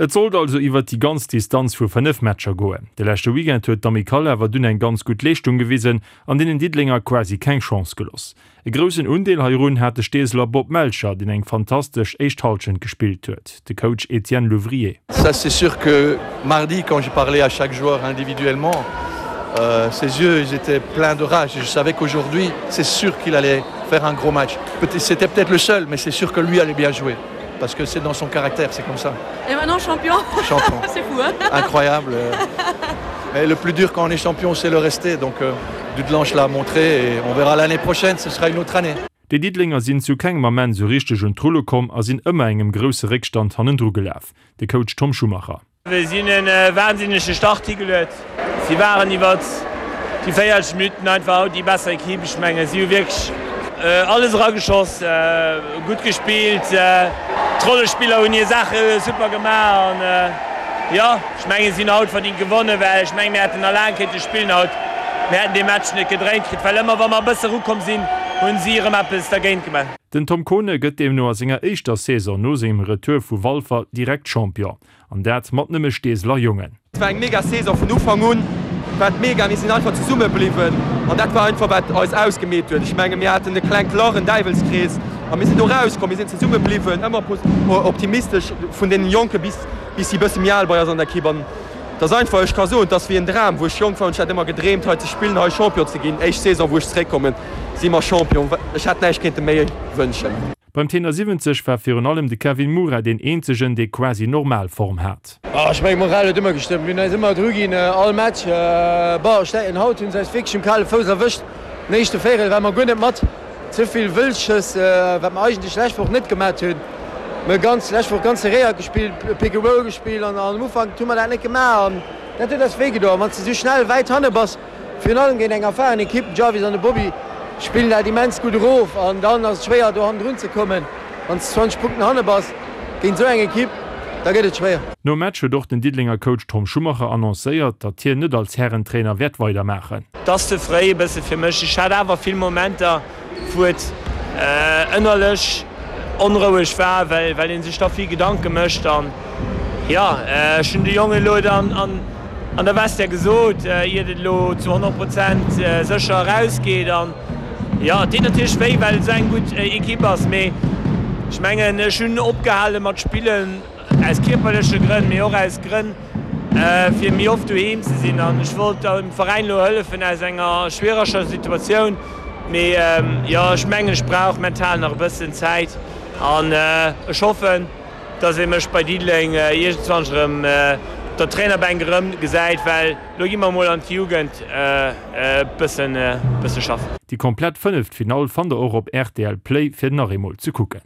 Et sollt also iwwert déi ganz Distanz vu 5 Matcher goen. De leschte Weekend huet d'Amicale awer dunn eng ganz gutt Leeschtung gewisen an deenen Diddelenger quasi keng Chance geloss. E groussen Undeel heirun hat de Steeseler Bob Melcher, deen eng fantastesch éischt Hallschent gespillt huet. De Coach Etienne Louvrier. Ça c'est sûr que mardi quand j'ai parlé à chaque joueur individuellement, euh, ses yeux ils étaient pleins de rage et je savais qu'aujourd'hui c'est sûr qu'il allait faire un gros match. C'était peut-être le seul, mais c'est sûr que lui allait bien jouer parce que c'est dans son caractère, c'est comme ça. Et maintenant champion, champion. c'est fou hein Incroyable. Mais le plus dur quand on est champion, c'est le rester. Donc euh, Dudelange l'a montré et on verra l'année prochaine, ce sera une autre année. Déi Diddelenger sinn zu kengem Ament sou richteg un d'Rulle komm a sinn ëmmer engem grousse Réckstand hannendru gelaf. De Coach Tom Schumacher. Mir sinn e wahnsinnege Start higeluet. Si waren iwwert déi 40 Minutten einfach haut déi besser Equipe. Ech mengen, si hu wierklech alles erageschoss, gutt gespillt. D'Rollespiller hunn hir Saache super gemaach an jo, ech mengen, si hunn haut verdingt gewonnen, well ech mengen, mir hätten nach laang kéinte spillen haut. Mir hätten dee Match net gedréint kritt, well ëmmer wa mer e bësse erukomm sinn, hunn si erëm eppes dergéint gemaach. Den Tom Kohne gëtt deemno a senger éischter Saison no sengem Retour vu Walfer direkt Champion. An dat mat nëmme Steeseler Jongen. Et war eng mega Saison vun Ufank un war et mega, mir sinn einfach zesumme bliwwen an dat war einfach wat eis ausgemeet huet. Ech menge mir haten e klengt Lach, en Däiwelskrees a mir sinn do rauskomm, mir sinn zesumme bliwwen, ëmmer optimistesch vun deenen Jonke bis bis si bësse méi al bei eis an der Ekipp an et ass einfach, ech ka soen, et ass wéi en Dram. Wou ech jonk war hunn ech hat ëmmer gedreemt hei ze spillen, hei Champion ze ginn. Éischt Saison wou ech zeréckkommen si mer Champion, ech hätt näischt kéinte méi wënschen. Beim Tenor 70 war virun allem de Kevin Moura deen eenzegen, dee quasi normal Form hat. Ech mengen d'Moral huet ëmmer gestëmmt. Mir hunn eis ëmmer dru ginn, all Match. Bon, ech denken haut hunn se eis wierklech um kale Fouss erwëscht. Den éischte Véierel ware mer guer net mat. Ze vill Wëllschëss, wat mer eigentlech lescht Woch net gemat hunn. Mir hu ganz lescht Woch ganz serréiert gespillt, Pick and Roll gespillt an am Ufank hu mer dat net gemaach an dat huet eis wéi gedoen. Wann s de esou schnell wäit hanne bass, Virun allem géint eng erfahren Ekipp, den Jarvis an de Bobby spillen dat immens gutt erof an dann ass et schwéier do hannendrun ze kommen. Wann s de 20 Punkten hanne bass géint esou eng Ekipp, da gëtt et schwéier. Nom Match huet och den Diddelenger Coach Tom Schumacher annoncéiert, datt hien net als Härentrainer wäert weidermaachen. Et ass ze fréi e bësse fir mech. Ech hat awer vill Momenter, wou et ënnerlech onroueg war, well well ee sech da vill Gedanke mécht. An jo, ech hunn de Jongen elo dann an an der Vestiaire gesot, iert et elo zu 100 Prozent sécher erausgeet. An jo, et deet natierlech wéi, well et esou eng gutt Ekipp ass. Mee ech mengen, ech hunn opgehale mat spillen aus kierperleche Grënn, mee och aus Grënn, fir méi oft doheem ze sinn. An ech wollt dem Veräin elo hëllefen aus enger schwiereger Situatioun. Mee jo, ech mengen, ech brauch mental nach e bëssen Zäit an ech hoffen, dass ee mech bei Diddeleng iergendwann erëm op der Trainerbänk erëm gesäit, well elo gi mer emol an d'Jugend e bësse schaffen. Déi komplett Fënneffinall fannt der och op rtl Play fir nach eemol ze kucken.